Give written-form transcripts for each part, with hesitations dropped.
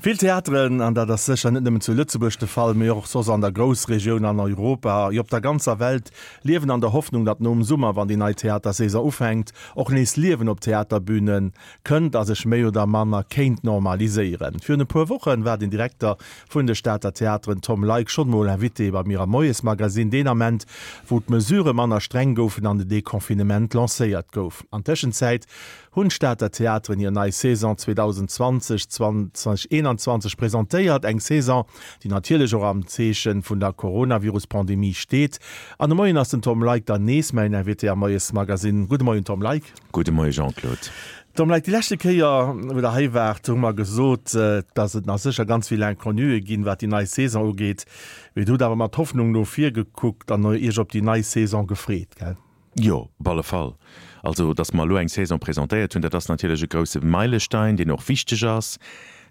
Vill Theateren, an dat ass sécher net nëmmen zu Lëtzebuerg de Fall, mee och soss an der Groussregioun, an Europa, jo op der ganzer Welt, liewen an der Hoffnung, datt nom Summer, wann déi nei Theatersaison ufänkt, och nees Liewen op d'Theaterbüne kënnt a sech méi oder manner kéint normaliséieren. Virun e puer Woche war den Direkter vun de Stater Theateren Tom Leick schonn mol Invité bei mir am Moiesmagasinn, deen Ament, wou d'Mesurë manner streng goufen an de Deconfinement lancéiert gouf. An Tëschenzäit hunn d'Stater Theateren hir nei Saison 2020, 2021 presentéiert. Eng Saison, déi natierlech och am Zeeche vun der Coronavirus-Pandemie steet. An de Moien ass den Tom Leick dann nees mäin Invité am Moiesmagasinn. Gudde Moien, Tom Leick. Gudde Moie Jean-Claude. Tom Leick, déi leschte Kéier, wou Der hei waart, hu mer gesot, dass et nach sécher ganz vill Inconnue ginn, wat déi nei Saison ugeet. Mee Dir hutt awer mat Hoffnung no vir gekuckt an Iech op déi nei Saison gefreet, gell? Jo, op alle Fall. Also, datt mer elo eng Saison presentéiert hunn, dat ass natierlech e grousse Meilestein, deen och wichteg ass.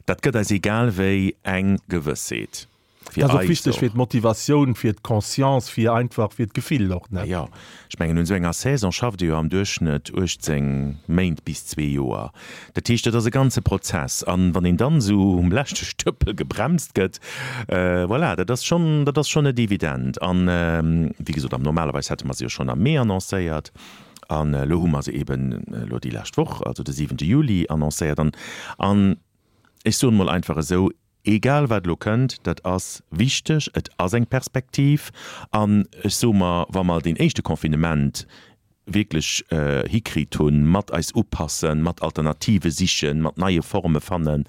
Dat gëtt eis egal wéi eng Gewëssheet. Dat ass och wichteg fir d'Motivatioun, fir d'Conscience, fir einfach fir d'Gefill och, ne? Jo, ech mengen, un esou enger Saison schafft ee jo am Duerchschnëtt 18 Méint bis zwee Joer. Dat heescht, dat ass e ganze Prozess. An wann een dann esou um leschte Stëppel gebremst gëtt, voilà, dat ass schonn, dat ass schonn net evident. An, wéi gesot, am normalerweis hätte mer se jo schonn am Mee annoncéiert. An elo hu mer se eeben elo déi lescht Woch, also de siwente Juli, annoncéiert. An, an ech soen emol einfach esou, Egal wat elo kënnt, dat ass wichteg, et ass eng Perspektiv. An ech soe mer, wa mer deen éischte Confinement wierklech hikritt hunn, mat eis upassen, mat Alternative sichen, mat neie Forme fannen,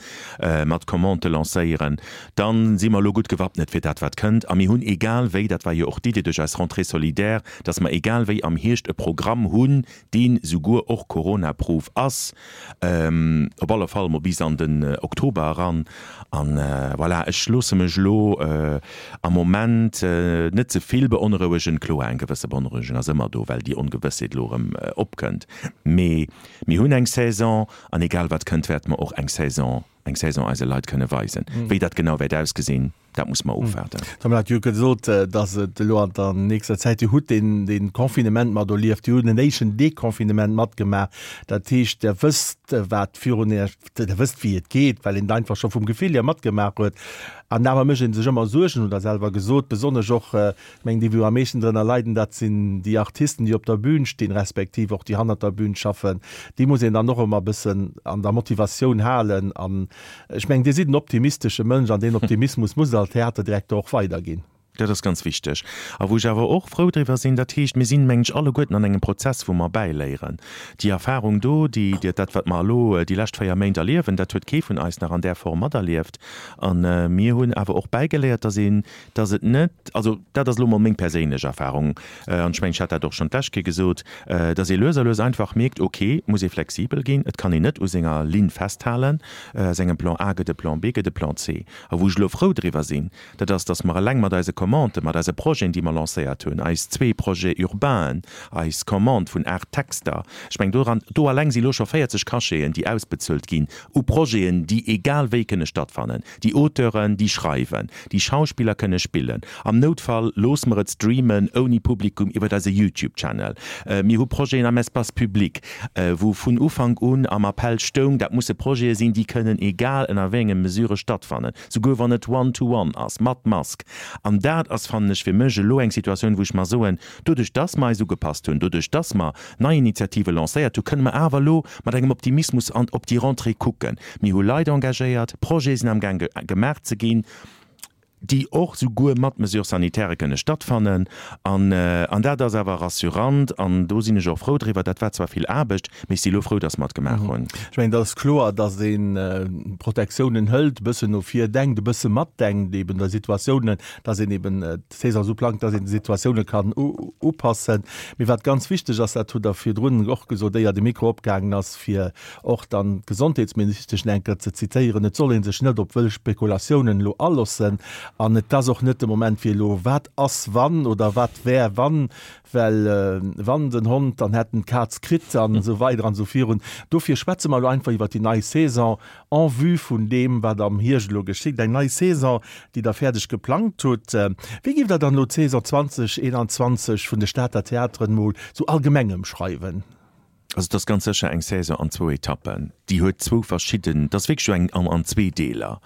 mat Commandë lancéieren, da si mer elo gutt gewappnet fir dat wat kënnt. A mir hunn egal wéi, dat war jo och d'Idee duerch eis Rentrée solidaire, datt mer egal wéi am Hierscht e Programm hunn, deen souguer och Corona-proof ass, op alle Fall mol bis an den Oktober eran. An voilà, ech loosse mech elo am Moment net ze vill beonrouegen. Kloer, eng gewësse Beonrouegung ass ëmmer do, well déi Ongewëssheet elo erëm opkënnt. Mee mir hunn eng Saison an egal wat kënnt, wäerte mer och eng Saison, eng Saison eise Leit kënne weisen. Wéi dat genau wäert ausgesinn, Dat muss mer ofwaarden. D'Mme hat jo gesot, datt et elo an der nächster Zäit, Dir hutt deen, dee Confinement mat erlieft, Dir hutt en éischten Deconfinement matgemaach. Dat heescht, Der wësst, wat virun Iech, Der wësst, wéi et geet, well een et einfach scho vum Gefill hier matgemaach huet. An awer mécht ee sech ëmmer Suergen, hutt Der selwer gesot, besonnesch och, ech mengen, déi wou am meeschten drënner leiden, dat sinn déi Artisten, déi op der Bühn stinn, respektiv och déi hannert der Bühn schaffen. Déi muss een dann och ëmmer e bëssen an der Motivatioun halen an Ech mengen, Dir sidd en optimistesche Mënsch an deen Optimismus muss Der als Theaterdirekter och weiderginn. Dat ass ganz wichteg. A wou ech awer och frou driwwer sinn, dat heescht, mir sinn, mengen ech, alleguerten an engem Prozess, wou mer bäiléieren. Déi Erfahrung do, déi, dat, wat mer elo déi lescht 4 Méint erliewen, dat huet kee vun eis nach an där Form materlieft. A mir hunn awer och bäigeléiert, dass een, dass et net, also dat ass elo mol meng perséinlech Erfahrung, an ech mengen, ech hat dat och schonn d'lescht Kéier gesot, dass ee lues a lues einfach mierkt, ok, et muss ee flexibel ginn, et kann een net u senger Linn festhalen, aus engem Plan A gëtt e Plan B, gëtt e Plan C. A wou ech elo frou driwwer sinn, dat ass, dass mer eleng mat eise Commanden, mat eise Projeten, déi mer lancéiert hunn, eis zwee Projets urbainen, eis Commande vun 8 Texter, ech mengen, doran, do eleng si elo scho 40 Cacheten, déi ausbezuelt ginn u Projeten, déi egal wéi kënne stattfannen. Déi Auteuren, déi schreiwen, déi Schauspiller kënne spillen. Am Noutfall loosse mer et streamen ouni Publikum iwwert eise YouTube Channel. Mir hu Projeten am Espace public, wou vun Ufank un am Appell stoung, dat musse Projete sinn, déi kënnen egal ënner wéi enge Mesure stattfannen, souguer wann et one to one ass, mat Mask. An dat ass, fannen ech, fir mech elo eng Situatioun, wou ech mer soen, Doduerch dass mer eis ugepasst hunn, doduerch dass mer nei Initiative lancéiert hunn, kënne mer awer elo mat engem Optimismus an op déi Rentrée kucken. Mir hu Leit engagéiert, Projete sinn amgaang gemaach ze ginn, déi och souguer mat Mesures sanitaires kënne stattfannen. An, an dat ass awer rassurant an do sinn ech och frou driwwer. Dat war zwar vill Aarbecht, mee ech si elo frou, dass mer et gemaach hunn. Ech mengen, et ass kloer, dass ee Protektiounen hëlt, e bëssen no vir denkt, e bësse matdenkt eben der Situatiounen, dass een eben d'Saison esou plangt, dass een de Situatioune kann upassen. Mee wat ganz wichteg ass, dat hutt Der virdrun och gesot, éier de Mikro opgaangen ass, fir och dann d'Gesondheetsministesch eng Kéier ze zitéieren, Et soll ee sech net op wëll Spekulatiounen elo alossen an et ass och net de Moment fir elo wat ass wann oder wat wär wann, well wann den Hond, dann hätt en d'Kaz kritt an esou weider an esou virun. Dofir schwätze mer elo einfach iwwert déi nei Saison en vue vun deem, wat am Hierscht elo geschitt. Eng nei Saison, déi Der fäerdeg geplangt hutt. Wéi giff Der dann elo d'Saison 2021 vun de Stater Theateren mol sou allgemeng ëmschreiwen? Also et ass ganz sécher eng Saison an zwou Etappen. Déi huet zwou verschidden, et ass wierklech eng an zwee Deeler.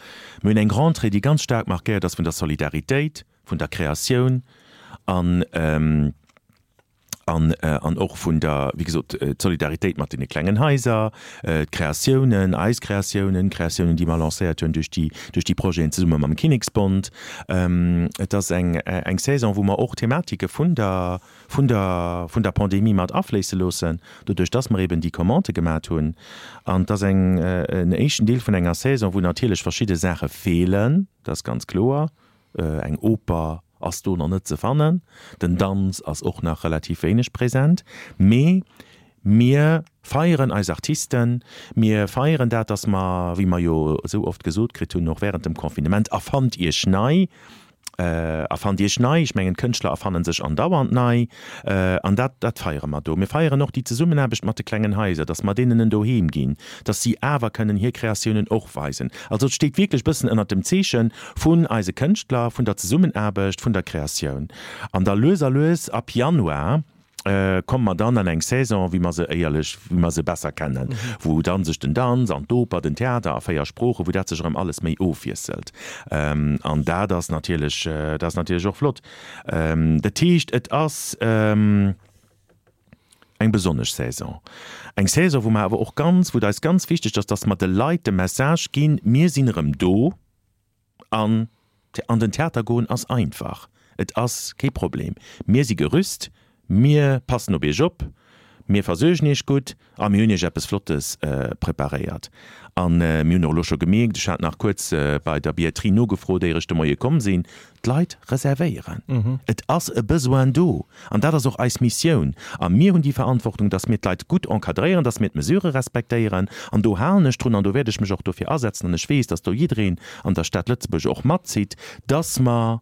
Mir hunn eng Rentrée, déi ganz staark markéiert ass vun der Solidaritéit, vun der Kreatioun an an an och vun der, wéi gesot, d'Solidaritéit mat deene klengen Haiser, d'Kreatiounen, eis Kreatiounen, d'Kreatiounen, déi mer lancéiert hunn duerch déi duerch déi Projeten zesumme mam Kinneksbond. Et ass eng eng Saison, wou mer och Thematike vun der vun der vun der Pandemie mat afléisse loossen, doduerch dass mer eben déi Commandë gemat hunn. An et ass eng en éischten Deel vun enger Saison, wou natierlech verschidde Saache feelen, dat ass ganz kloer. Eng Oper ass do nach net ze fannen, den Danz ass och nach relativ wéineg present, mee mir feieren eis Artisten, mir feieren dat, dass mer, wéi mer jo esou oft gesot kritt hunn, och während dem Confinement, Erfannt Iech nei! Erfannt Iech nei! Ech mengen, d'Kënschtler erfanne sech andauernd nei an dat, dat feiere mer do. Mir feieren och déi Zesummenaarbecht mat de klengen Haiser, dass mer deenen en Doheem ginn, dass si awer kënnen hir Kreatiounen och weisen. Also et steet wierklech bëssen ënnert dem Zeeche vun eise Kënschtler, vun der Zesummenaarbecht, vun der Kreatioun. An da lues a lues ab Januar komme mer dann an eng Saison, wéi mer se éierlech, wéi mer se besser kennen, wou dann sech den Danz an d'Oper, den Theater a 4 Sproochen, wou dat sech erëm alles méi ofwiesselt. An dat ass natierlech, dat ass natierlech och flott. Dat heescht, et ass eng besonnesch Saison. Eng Saison, wou mer awer och ganz, wou et eis ganz wichteg ass, dass mer de Leit de Message ginn, Mir sinn erëm do. An an den Theater goen ass einfach, et ass kee Problem. Mir si gerüst, mir passen op iech op, mir versuergen iech gutt a mir hunn iech eppes Flottes preparéiert. A mir hunn och elo scho gemierkt, ech hat nach kuerz bei der Billetterie nogefrot, éier ech de Moie komm sinn, d'Leit reservéieren. Et ass e Besoin do. An dat ass och eis Missioun. A mir hunn déi Verantwortung, dass mir d'Leit gutt encadréieren, dass mir d'Mesurë respektéieren. An do halen ech drun an do wäert ech mech och dofir asetzen. An ech weess, dass do jiddereen an der Stad Lëtzebuerg och matzitt, dass mer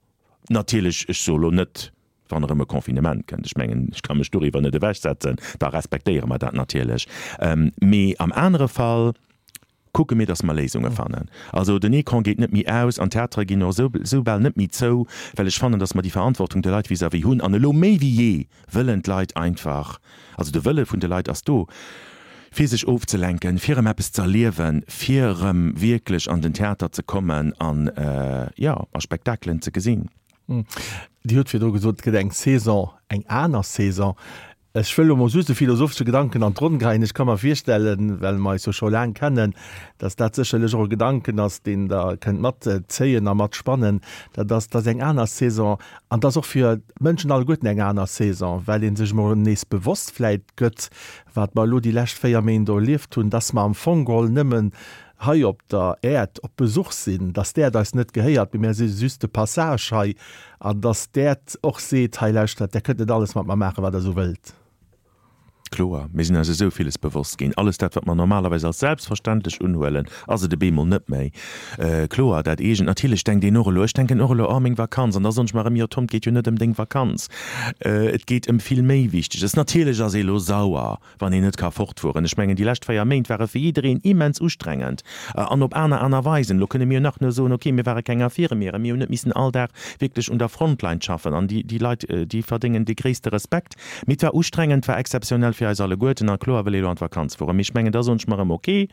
natierlech, ech soe lo net, wann erëm e Confinement kënnt, ech mengen, ech ka mech doriwwer net ewechsetzen, da respektéiere mer dat natierlech, mee am anere Fall, kucke mir, dass mer Léisunge fannen. Also den Ecran geet net méi aus an d'Theatere ginn och esou esou bal net méi zou, well ech fannen, dass mer déi Verantwortung de Leit vis-à-vis hunn. An elo méi wéi jee wëllen d'Leit einfach, also de Wëlle vun de Leit ass do, fir sech ofzelenken, fir erëm eppes ze erliewen, fir erëm wierklech an den Theater ze kommen an, jo, a Spektakelen ze gesinn. Dir hutt virdru gesot, et gëtt eng Saison, eng aner Saison. Ech wëll elo mol just e philosophesche Gedanken an d'Ronn geheien. Ech ka mer virstellen, well mer eis jo scho laang kennen, dass dat sécherlech och e Gedanken ass, deen Der kënnt matzéien a matspannen. Dat ass, dass eng aner Saison, an dass och fir d'Mënschen alleguerten eng aner Saison, well ee sech emol nees bewosst vläit gëtt, wat mer elo déi lescht 4 Méint do erlieft hunn, dass mer am Fong geholl nëmmen hei op der Äerd op Besuch sinn, dass d'Äerd eis net gehéiert, mee mär si just de Passage hei, an dass d'Äerd och seet, hei lauschtert, där kënnt net alles mat mer maachen, wat der esou wëllt. Kloer, mir sinn eis esou villes bewosst ginn. Alles dat, wat mer normalerweis als selbstverständlech unhuelen, ass et e beemol net méi. Kloer, dat eegent. Natierlech denkt een och elo, ech denken och elo, oh meng Vakanz, an da soen ech mer erëm, jo Tom, et geet jo net ëm deng Vakanz, et geet ëm vill méi Wichteges. Natierlech ass ee elo sauer, wann een net ka fortfueren. Ech mengen, déi lescht 4 Méint ware fir jiddereen immens ustrengend an op aner aner Weisen. Elo kënne mir jo nach nur soen, okay, mir ware keng Infirmieren, mir hunn net missen all Dag wierklech un der Frontline schaffen an déi, déi Leit, déi verdéngen dee gréisste Respekt. Mee et war ustrengend, et war exzeptionell fir eis alleguerten a kloer wëll ee elo an d'Vakanz fueren. Mee ech mengen, da soen ech mer erëm, okay,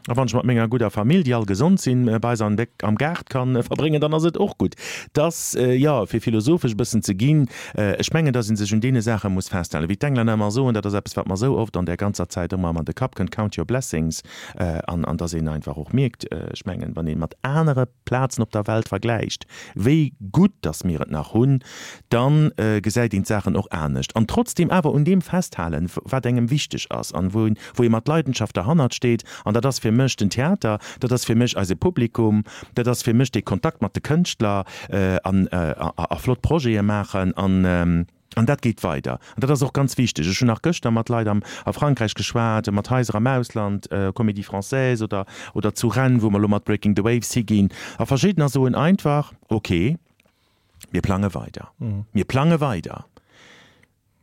A wann ech mat menger gudder Famill, déi all gesond sinn, bei eis am Gaart kann verbréngen, dann ass et och gutt. Dass, jo, fir philosophesch e bëssen ze ginn, ech mengen, dass ee sech un deene Saache muss festhalen. Wéi d'Englänner ëmmer soen, dat ass eppes, wat mer esou oft an där ganzer Zäit ëmmer an de Kapp kënnt, Count your blessings. An dass een einfach och mierkt, ech mengen, wann ee mat anere Plazen op der Welt vergläicht, wéi gutt dass mir et nach hunn, da gesäit een d'Saachen och anescht. An trotzdeem awer un deem festhalen, wat engem wichteg ass an wou ee mat Leidenschaft derhannert steet. An dat ass fir mech den Theater, dat ass fir mech eise Publikum, dat ass fir mech dee Kontakt mat de Kënschtler an a flott Projete maachen. An dat geet weider. An dat ass och ganz wichteg. Ech hunn nach gëschter mat Leit am a Frankräich geschwat, mat Haiser am Ausland, Comédie Française oder oder zu Rennes, wou mer elo mat Breaking the Waves higinn. A verschiddener soen einfach, Okay, mir plange weider. Mir plange weider.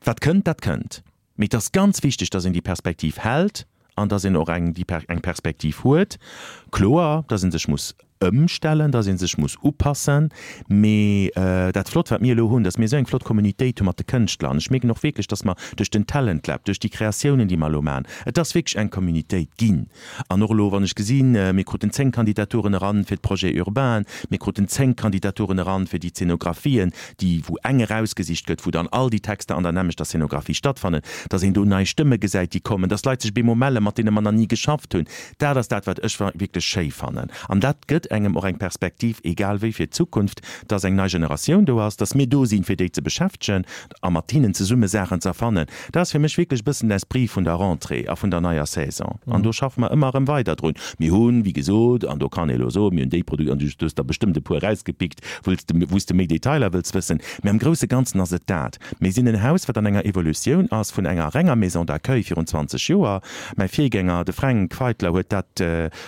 Wat kënnt, dat kënnt. Mee et ass ganz wichteg, dass een déi Perspektiv hält an dass een och eng déi eng Perspektiv huet. Kloer, dass ee sech muss. Ëmstellen, dass ee sech muss upassen. Mee dat Flott, wat mir elo hunn, dass mir esou eng flott Communitéit hu mat de Kënschtler, an ech mierken och wierklech, dass mer duerch den Talent Lab, duerch déi Kreatiounen, déi mer elo maachen, et ass wierklech eng Communitéit ginn. An och elo, wann ech gesinn, mir kruten 10 Kandidaturen eran fir d'Projets urbains, mir kruten 10 Kandidaturen eran fir déi Zeenografien, déi, wou eng erausgesicht gëtt, wou dann all déi Texter an der nämmlechter Zeenografie stattfannen, dass een do nei Stëmme gesäit, déi kommen, dass Leit sech op eemol mellen, mat deene mer nach ni geschafft hunn. Dat ass dat, wat ech wierklech schéi fannen. An dat gëtt engem och eng Perspektiv, egal wéi, fir d'Zukunft, dass eng nei Generatioun do ass, dass mir do sinn, fir déi ze beschäftegen a mat hinnen zesumme Saachen ze erfannen. Dat ass fir mech wierklech e bëssen den Esprit vun der Rentrée a vun der neier Saison. An do schaffe mer ëmmer erëm weider drun. Mir hunn, wéi gesot, an do kann ee elo soen, mir hunn déi Produkt, an du hues der bestëmmt e puer erausgepickt, wou s de, wou s de méi Detailer wëlls wëssen. Mä am grousse Ganzen ass et dat. Mir sinn en Haus, wat an enger Evolutioun ass vun enger renger Maison d'accueil virun 20 Joer, Mäi Virgänger, de Fränk Feitler, huet dat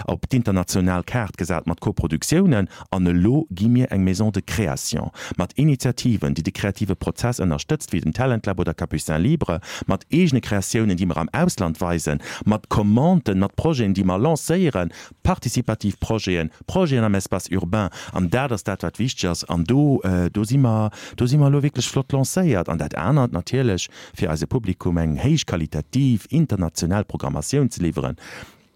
op d'international Kaart gesat mat Koproduktiounen. An elo gi mir eng Maison de création mat Initiativen, déi de kreative Prozess ënnerstëtzt, wéi den Talent Lab oder Capucins Libres, mat eegene Kreatiounen, déi mer am Ausland weisen, mat Commanden, mat Projeten, déi mer lancéieren, participativ Projeten, Projeten am Espace urbain. An dat ass dat, wat wichteg ass. An do, do si mer, do si mer elo wierklech flott lancéiert. An dat anert natierlech, fir eise Publikum eng héichqualitativ international Programmatioun ze liwweren.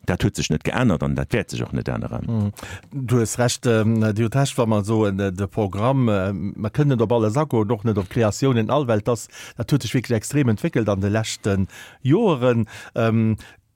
Dat huet sech net geännert an dat wäert sech och net änneren. Du hues Recht, Dir hutt Recht, wa mer soen, de Programm, mer kënnen net op alles agoen, och net op d'Kreatiounen all, well dass, dat huet sech wierklech extrem entwéckelt an de leschte Joeren.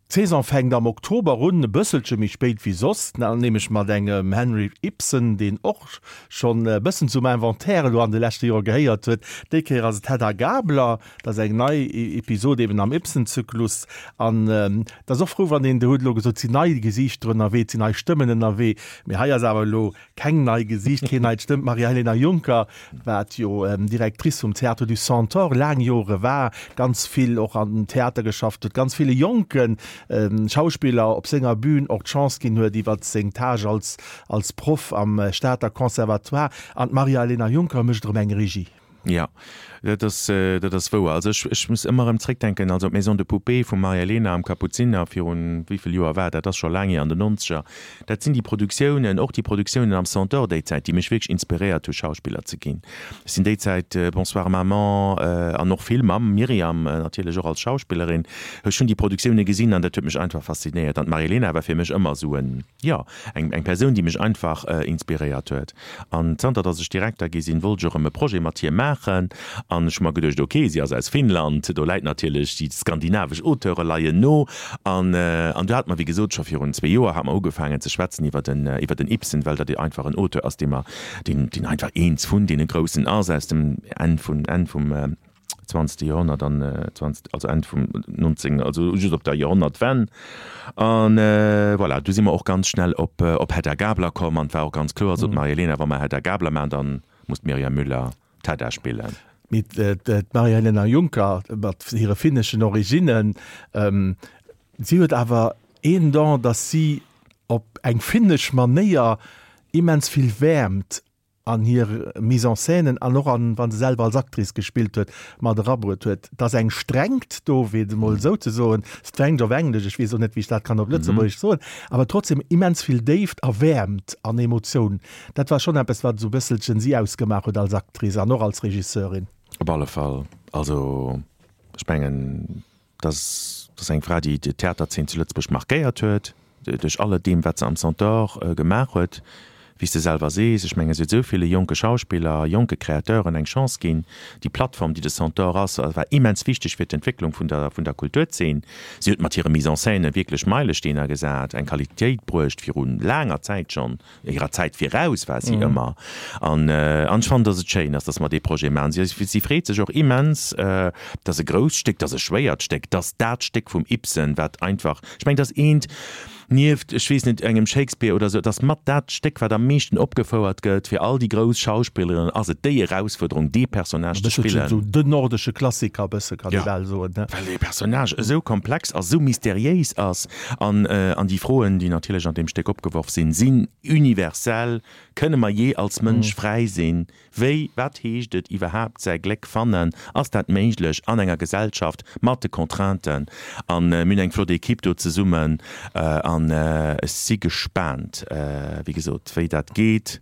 D'Saison fänkt am Oktober un, e bësselche méi spéit wéi soss, nämlech mat engem Henrik Ibsen, deen och schonn e bëssen zum Inventaire elo an de leschte Jore gehéiert huet. Déi Kéier ass et Hedda Gabler, dat ass eng nei Episod eben am Ibsen-Zyklus. An et ass och frou, wann een, Dir hutt elo gesot, et sinn nei Gesiichter ënnerwee, et sinn nei Stëmmen ënnerwee, mee hei ass awer elo Keng nei Gesiicht, keen neit Stëmm, D'Maria-Helena Juncker, wat jo Directrice vum Théâtre du Centaure laang Jore war, ganz vill och an den Theater geschafft huet, ganz ville jonke Schauspiller op senger Bühn och d'Chance ginn huet iwwer seng Tâche als als Proff am Stater Conservatoire. An d'Maria-Helena Juncker mécht erëm eng Regie. Jo, dat ass, dat ass wouer. Also ech, ech muss ëmmer erëm zréckdenken, also d'Maison de poupées vum Maria-Elena am Kapuziner virun, wéi vill Joer war dat, dat ass scho laang hier, an den Nonzeger, dat sinn déi Produktiounen, och déi Produktiounen am Centaure déi Zäit, déi mech wierklech inspiréiert hu Schauspiller ze ginn. Ech sinn déi Zäit Bonsoir Maman an och vill mam Myriam natierlech och als Schauspillerin, ech hunn déi Produktioune gesinn an dat huet mech einfach faszinéiert. An d'Maria-Elena war fir mech ëmmer esou en, jo, eng, eng Persoun, déi mech einfach inspiréiert huet. An zanter datt ech Direkter gi sinn, wollt ech och erëm e Projet mat hir maachen. An ech hu mer geduecht, ok, si ass aus Finnland, do läit natierlech, déi skandinavesch Auteure leien no. An, an do hate mer, wéi gesot, scho virun zwee Joer hate mer ugefaangen ze schwätzen iwwer den, iwwer den Ibsen, well dat einfach en Auteur ass, dee mer, deen, deen einfach eens vun deene Groussen ass aus dem Enn vun, Enn vum, zwanzegste Joerhonnert an zwanzegt, also Enn vum 19, also just op der Joerhonnertwenn. An voilà, du si mer och ganz schnell op op Hedda Gabler komm an et war och ganz kloer, sot d'Marie-Helena, wa mer Hedda Gabler maachen, dann muss d'Myriam Müller d'Hedda spillen. Mee d'Marie-Helena Juncker mat hire finneschen Originnen, si huet awer een Don, datt si op eng finnesch Manéier immens vill Wäermt an hir Mise-en-scènen an och an, wa se selwer als Actrice gespillt huet, mat erabruet huet. Et ass eng Strengt do, fir et emol esou ze soen, Strength op Englesch, ech weess och net, wéi ech dat kann op Lëtzebuergesch soen, awer trotzdem immens vill Déift a Wäermt an Emotioun. Dat war schonn eppes, wat esou e bësselchen si ausgemaach huet als Actrice an och als Regisseurin. Op alle Fall. Also, ech mengen, Dat ass eng Fra, déi d'Theaterzeen zu Lëtzebuerg markéiert huet, duerch alle deem, wat se am Centaure gemaach huet. Wéi s de selwer sees, ech mengen, si huet esou ville jonke Schauspiller, jonke Créateuren eng Chance ginn. Déi Plattform, déi de Centaure ass, war immens wichteg fir d'Entwécklung vun der, vun der Kulturzeen. Si huet mat hire Mise-en-scène wierklech Meilesteener gesat, eng Qualitéit bruecht, viru laanger Zäit schonn. Hirer Zäit viraus war si ëmmer. An ech fannen, dass et schéin ass, dass mer dee Projet maachen. Si, si freet sech och immens, et ass e grousst Stéck, et ass e schwéiert Stéck, et ass dat Stéck vum Ibsen, wat einfach, ech mengen, et ass eent, nieft, ech weess net, engem Shakespeare oder esou, et ass mat dat Stéck, wat am meeschten opgefouert gëtt. Fir all déi grouss Schauspillerinnen ass et déi Erausfuerderung, dee Personnage ze spillen. E bësselchen esou den nordesche Klassiker, e bësse kann ee bal soen, ne? Well dee Personnage esou komplex ass, esou mysteriéis ass. An, an déi Froen, déi natierlech an deem Stéck opgeworf sinn, sinn universell, Kënne mer jee als Mënsch fräi sinn? Wéi, wat heescht et iwwerhaapt säi Gléck fannen? Ass dat méiglech an enger Gesellschaft mat de Contrainten? An mir hunn eng flott Equipe do zesummen. A. An ech si gespaant, wéi gesot, wéi dat geet.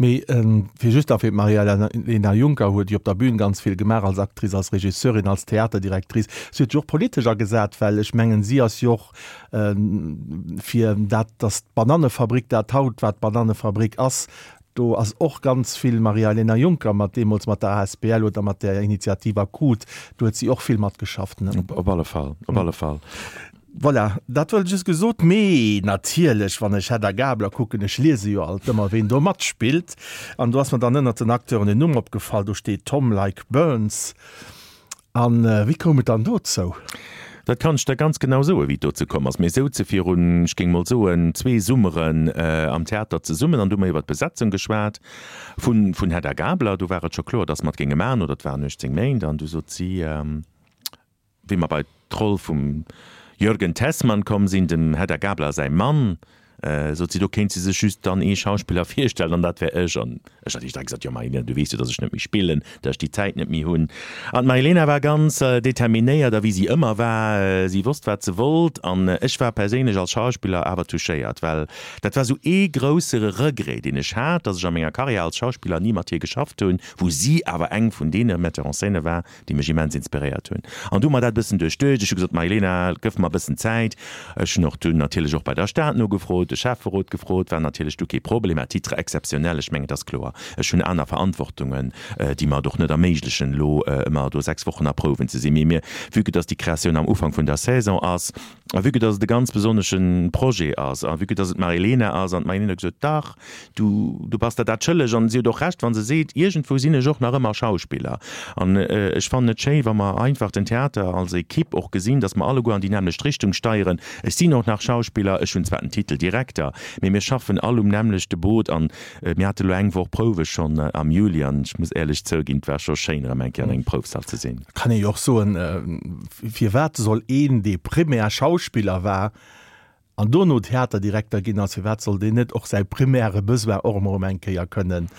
Mee fir just nach fir d'Maria-Lena Junker huet jo op der Bühn ganz vill gemaach, als Actrice, als Regisseurin, als Theaterdirectrice. Si huet sech och politesch agesat, well ech mengen, si ass jo och fir dat, datt d'Banannefabrik dat haut, wat d'Banannefabrik ass, do ass och ganz vill Maria-Elena Juncker mat deemools mat der asbl oder mat där Initiativ Akut, do huet si och vill matgeschafft, ne? Op alle Fall, op alle Fall. Voilà, dat wollt ech just gesot. Mee natierlech, wann ech Hedda Gabler kucken, ech liese jo alt ëmmer, ween do matspillt, an do ass mer dann ënnert den Acteuren en Numm opgefall, do steet Tom Like Burns. A wéi koum et dann dozou? Dat kann ech der ganz genau soen, wéi et dozou komm ass. Mir souze virun, ech géing mol soen, zwee Summeren am Theater zesummen an du hu mer iwwer d'Besetzung geschwat vun Hedda Gabler. Do war et scho kloer, datt mer et géinge maachen, oder et waren 18 Méint. An du sot si, wéi mer bei d'Roll vum Jürgen Tessmann komm sinn, dem Hedda Gabler säi Mann, Sot si, do kéint si sech just dann ee Schauspiller virstellen an dat wär ech. An ech hat direkt gesot, jo Marilena, du weess jo, datt ech net méi spillen, datt ech déi Zäit net méi hunn. An d'Marilena war ganz determinéiert a wéi si ëmmer war, si wosst wat se wollt. An ech war perséinlech als Schauspiller awer touchéiert, well dat war esou ee grousse Regret, deen ech hat, datt ech a menger Karriär als Schauspiller ni mat hir geschafft hunn, wou si awer eng vun deene Metteur en scène war, déi mech immens inspiréiert hunn. An du hu mer dat e bëssen duerchduecht. Ech hu gesot, Marilena, gëff mer e bëssen Zäit. Ech hunn och dunn natierlech och bei der Stad nogefrot, de Schäfferot gefrot, war natierlech du kee Problem, à titre exceptionnel, ech mengen, et ass kloer, ech hunn aner Verantwortungen, déi mer et och net erméiglechen, elo ëmmer do 6 Wochen a Prouwen ze sinn. Mee mir, vue que dass déi Kreatioun am Ufank vun der Saison ass a vue que dass et e ganz besonnesche Projet ass a vue que dass et d'Marilena ass an d'Marilena huet gesot, dach, Du, du bass der dat schëlleg. An si huet och Recht, wa se seet, iergendwou sinn ech och nach ëmmer Schauspiller. An ech fannen et schéi, wa mer einfach den Theater als Equipe och gesinn, datt mer alleguer an déi nämmlecht Richtung steieren. Ech sinn och nach Schauspiller, ech hunn zwar den Titel Direkter, mee mir schaffen all um nämmlechte Boot. An mir hate lo eng Woch Prouwe schonn am Juli an ech muss éierlech zouginn, et war scho schéin, erëm eng Kéier an engem Proufsall ze sinn. Kann ee jo och soen, firwat soll een, dee primär Schauspiller war, An dono Theaterdirekter ginn ass, firwat soll deen net och säi primäre Besoin och emol erëm eng Kéier kënnen,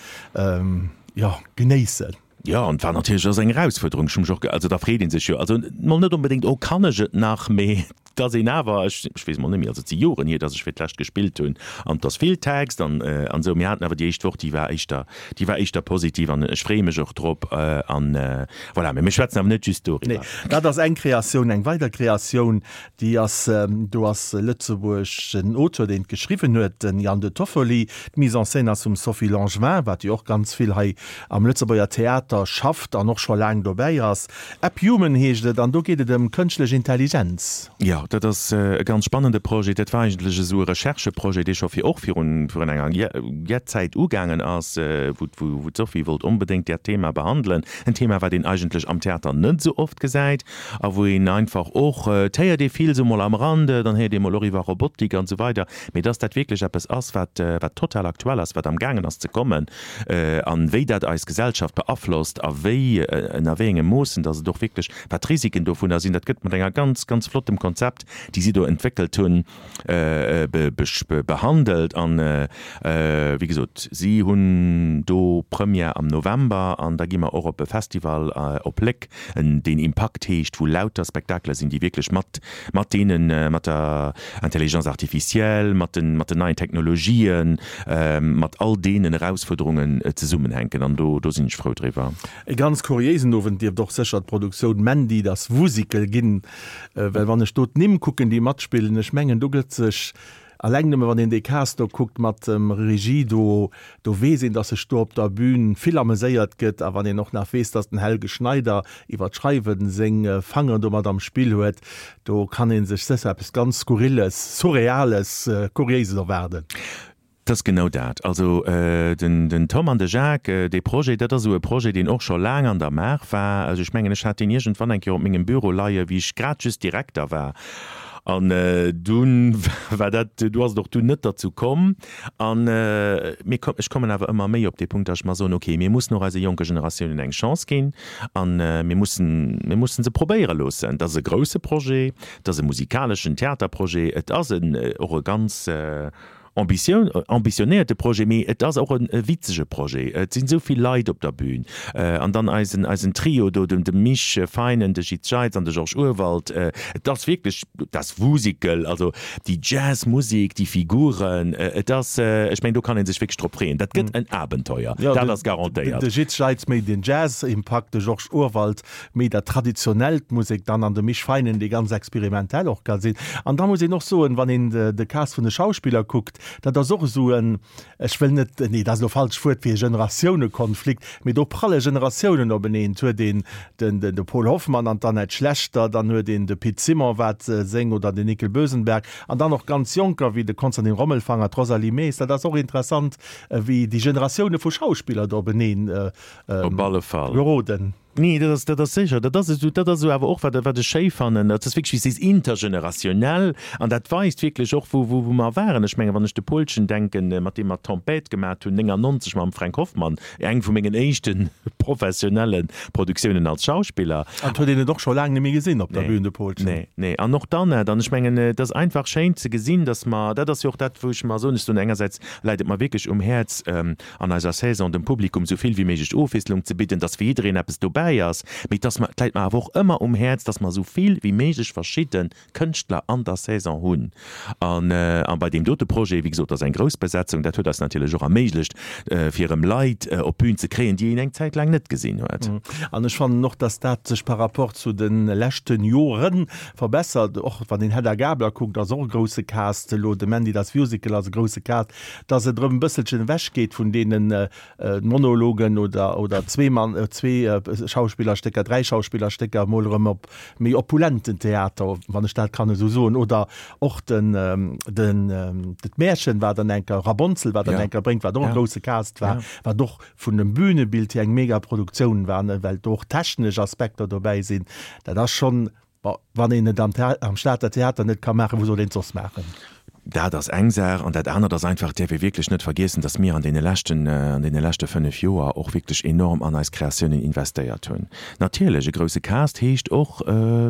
jo, genéissen? Jo, an et war natierlech ass eng Erausfuerderung. Ech hu mech och, also da freet ee sech jo, also mol net onbedéngt, oh kann ech et nach, mee et ass een awer, ech, ech weess mol net méi, also et si Joren hier, datt ech fir d'lescht gespillt hunn an et ass vill Text an an esou. Mir haten awer déi éischt Woch, déi war éischter, déi war éischter positiv an ech freeë mech och drop an voilà. Mee mir schwätzen awer net just doriwwer. Nee, dat ass eng Kreatioun. Eng weider Kreatioun, Déi ass, do ass Lëtzebuerg den Auteur, deen et geschriwwen huet, den Jan De Toffoli. D'Mise en scène ass vum Sophie Langevin, wat jo och ganz vill hei am Lëtzebuerger Theater schafft an och scho laang dobäi ass. App Human heescht et an do geet et ëm kënschtlech Intelligenz. Jo, dat ass e ganz spannende Projet. Dat war eigentlech esou e Rechercheprojet, dee scho fir och virun virun enger jett Zäit ugaangen ass, wou wou d'Sophie wollt onbedéngt dat Thema behandelen. En Thema, wat een eigentlech am Theater net esou oft gesäit. A wou een einfach och, et héiert ee vill esou mol am Rande, dann héiert ee mol och iwwer Robotik an esou weider, mee dass dat wierklech eppes ass, wat, wat total aktuell ass, wat amgaangen ass ze kommen an wéi dat eis Gesellschaft beaflosst a wéi, ënner wéi engem Moossen, dass et och wierklech, wat d'Risiken dovunner sinn, dat gëtt mat enger ganz, ganz flottem Konzept, déi si do entwéckelt hunn, behandelt. An, wéi gesot, si hunn do Première am November an da gi mer och op e Festival op Léck, deen Impakt heescht, wou lauter Spektakeler sinn, déi wierklech mat mat deenen, mat der Intelligence artificielle, mat den mat den neien Technologien, mat all deenen Erausfuerderungen zesummenhänken. An do do sinn ech frou driwwer. E ganz kuriéisen Owend dierft och sécher d'Produktioun Mandy, das Wusikel ginn, well wann ech do d'Nimm kucken, déi matspillen, ech mengen do gëtt sech Alleng nëmme wann een dee Cast do kuckt mat dem Regie do, do weess een, datt sech do op der Bühn vill ameséiert gëtt. A wann een och nach weess, datt den Helge Schneider iwwer d'Schreiwen seng Fangeren do mat am Spill huet, do kann ee sech sécher eppes ganz Skurrilles, Surreales, Kuriéises erwaarden. Et ass genau dat. Also den Tom an de Jacques, dee Projet, dat ass esou e Projet, deen och scho laang an der Maach war. Also ech mengen, ech hat deen iergendwann eng Kéier op mengem Büro leie wéi ech grad just Direkter war. An dunn war dat, du ass et och dunn net derzou komm. An mir, ech kommen awer ëmmer méi op dee Punkt, datt ech mer soen, okay, mir mussen och eise jonke Generatiounen eng Chance ginn an mir mussen, mir mussen se probéiere loossen. Et ass e grousse Projet, et ass e musikaleschen Theaterprojet, et ass en och e ganz. Ambitioun, ambitionéierte Projet, mee et ass och e witzege Projet. Et sinn esou vill Leit op der Bühn. An dann eisen, eisen Trio do, de Mich Feinen, de Jitz Jeitz an de Georges Urwald. Et ass wierklech das Wusikel, also déi Jazzmusek, déi Figuren. Et ass, ech mengen, do kann ee sech wierklech drop freeën. Dat gëtt en Abenteuer, dat ass garantéiert. De Jitz Jeitz méi den Jazz-Impakt, de Georges Urwald méi dat traditionellt Musek dann an de Mich Feinen, dee ganz experimentell och ka sinn. An da muss een och soen, wann een de Cast vun de Schauspiller kuckt, dat ass och esou en, ech wëll net, nee, dat ass elo falsch Wuert fir Generatiounekonflikt, mee do pralle Generatiounen openeen. Et huet een den de Paul Hoffmann an d'Annette Schlechter, dann huet een de Pit Simon, wat seng oder den Nickel Bösenberg an dann och ganz Jonker wéi de Konstantin Rommelfanger, d'Rosalie Maes. Dat ass och interessant, wéi déi Generatioune vu Schauspiller do openeen Op alle Fall. geroden. Nee, dat ass, dat ass sécher. Dat ass esou, dat ass esou awer och, wat, wat ech schéi fannen, dat ass wierklech, wéi s sees, intergenerationnel. An dat weist wierklech och, wou, wou, wou mer waren. Ech mengen, wann ech de Paulchen denken, mat deem mer d'Tempête gemat hunn, 99 mam Fränk Hoffmann, eng vu mengen éischte professionelle Produktiounen als Schauspiller. An et huet een et och scho laang net méi gesinn op der Bühn, de Paulchen. Nee, nee. An och d'Annette. An ech mengen, et ass einfach schéin ze gesinn, dass mer, dat ass jo och dat, wou ech mer soen, ech soen engersäits läit et mer wierklech um Häerz, an eiser Saison dem Publikum sou vill wéi méiglech Ofwiesslung ze bidden, dass fir jiddereen eppes dobäi ass, mee dass mer, et läit mer awer och ëmmer um Häerz, dass mer sou vill wéi méiglech verschidde Kënschtler an der Saison hunn. An a bei deem dote Projet, wéi gesot, ass eng grouss Besetzung, dat huet eis natierlech och erméiglecht, fir erëm Leit op d'Bün ze kréien, déi een eng Zäit laang net gesinn huet. An ech fannen och, dass dat sech par rapport zu de leschte Jore verbessert. Och wann een Hedda Gabler kuckt, ass och e grousse Cast elo, de Mandy das Musical ass e grousse Cast. dass et erëm e bësselchen ewech geet vun deene Monologen oder, oder Zweemann, Zwee-Schauspillerstécker, Dräi-Schauspillerstécker, emol erëm op méi opulenten Theater, wann ech dat kann esou soen, oder och den, den, d'Märchen, wat dann eng Kéier, Rabonzel, wat dann eng Kéier bréngt, wat och e grousse Cast war, wat och vun dem Bünebild hier eng mega Produktioun war, well do och technesch Aspekter dobäi sinn. Dat ass schonn Bon, wann een et am am Stater Theater net ka maachen, wou soll een et soss maachen? Dat ass eng Saach. An dat anert ass einfach, et däerf ee wierklech net vergiessen, datt mir an deene leschten, an deene leschte fënnef Joer och wierklech enorm an eis Kreatiounen investéiert hunn. Natierlech, e grousse Cast heescht och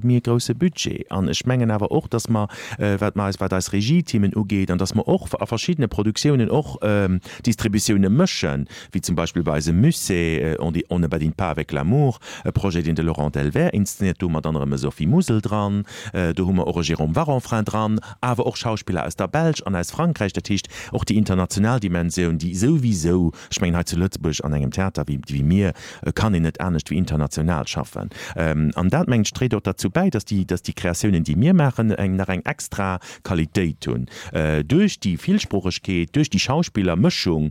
méi e grousse Budget. An ech mengen awer och, datt mer, wat mer eis, wat eis Regieteamen ugeet, an datt mer och a verschiddene Produktiounen och Distributioune mëschen, wéi zum Beispill bei eisem Musée On dit, on ne badine pas avec l'amour, e Projet, deen de Laurent Delvert inszenéiert, do hu mer dann erëm e Sophie Musel dran, do hu mer och e Jérôme Varanfrain dran, awer och Schauspiller aus der Belsch an aus Frankräich. Dat heescht, och déi international Dimensioun, déi souwisou, ech mengen hei zu Lëtzebuerg an engem Theater wéi wéi mir, kann een net anescht wéi international schaffen. An dat, mengen ech, dréit och derzou bäi, dass déi, dass déi Kreatiounen, déi mir maachen, eng nach eng extra Qualitéit hunn. Duerch déi Villsproochegkeet, duerch déi Schauspillermëschung,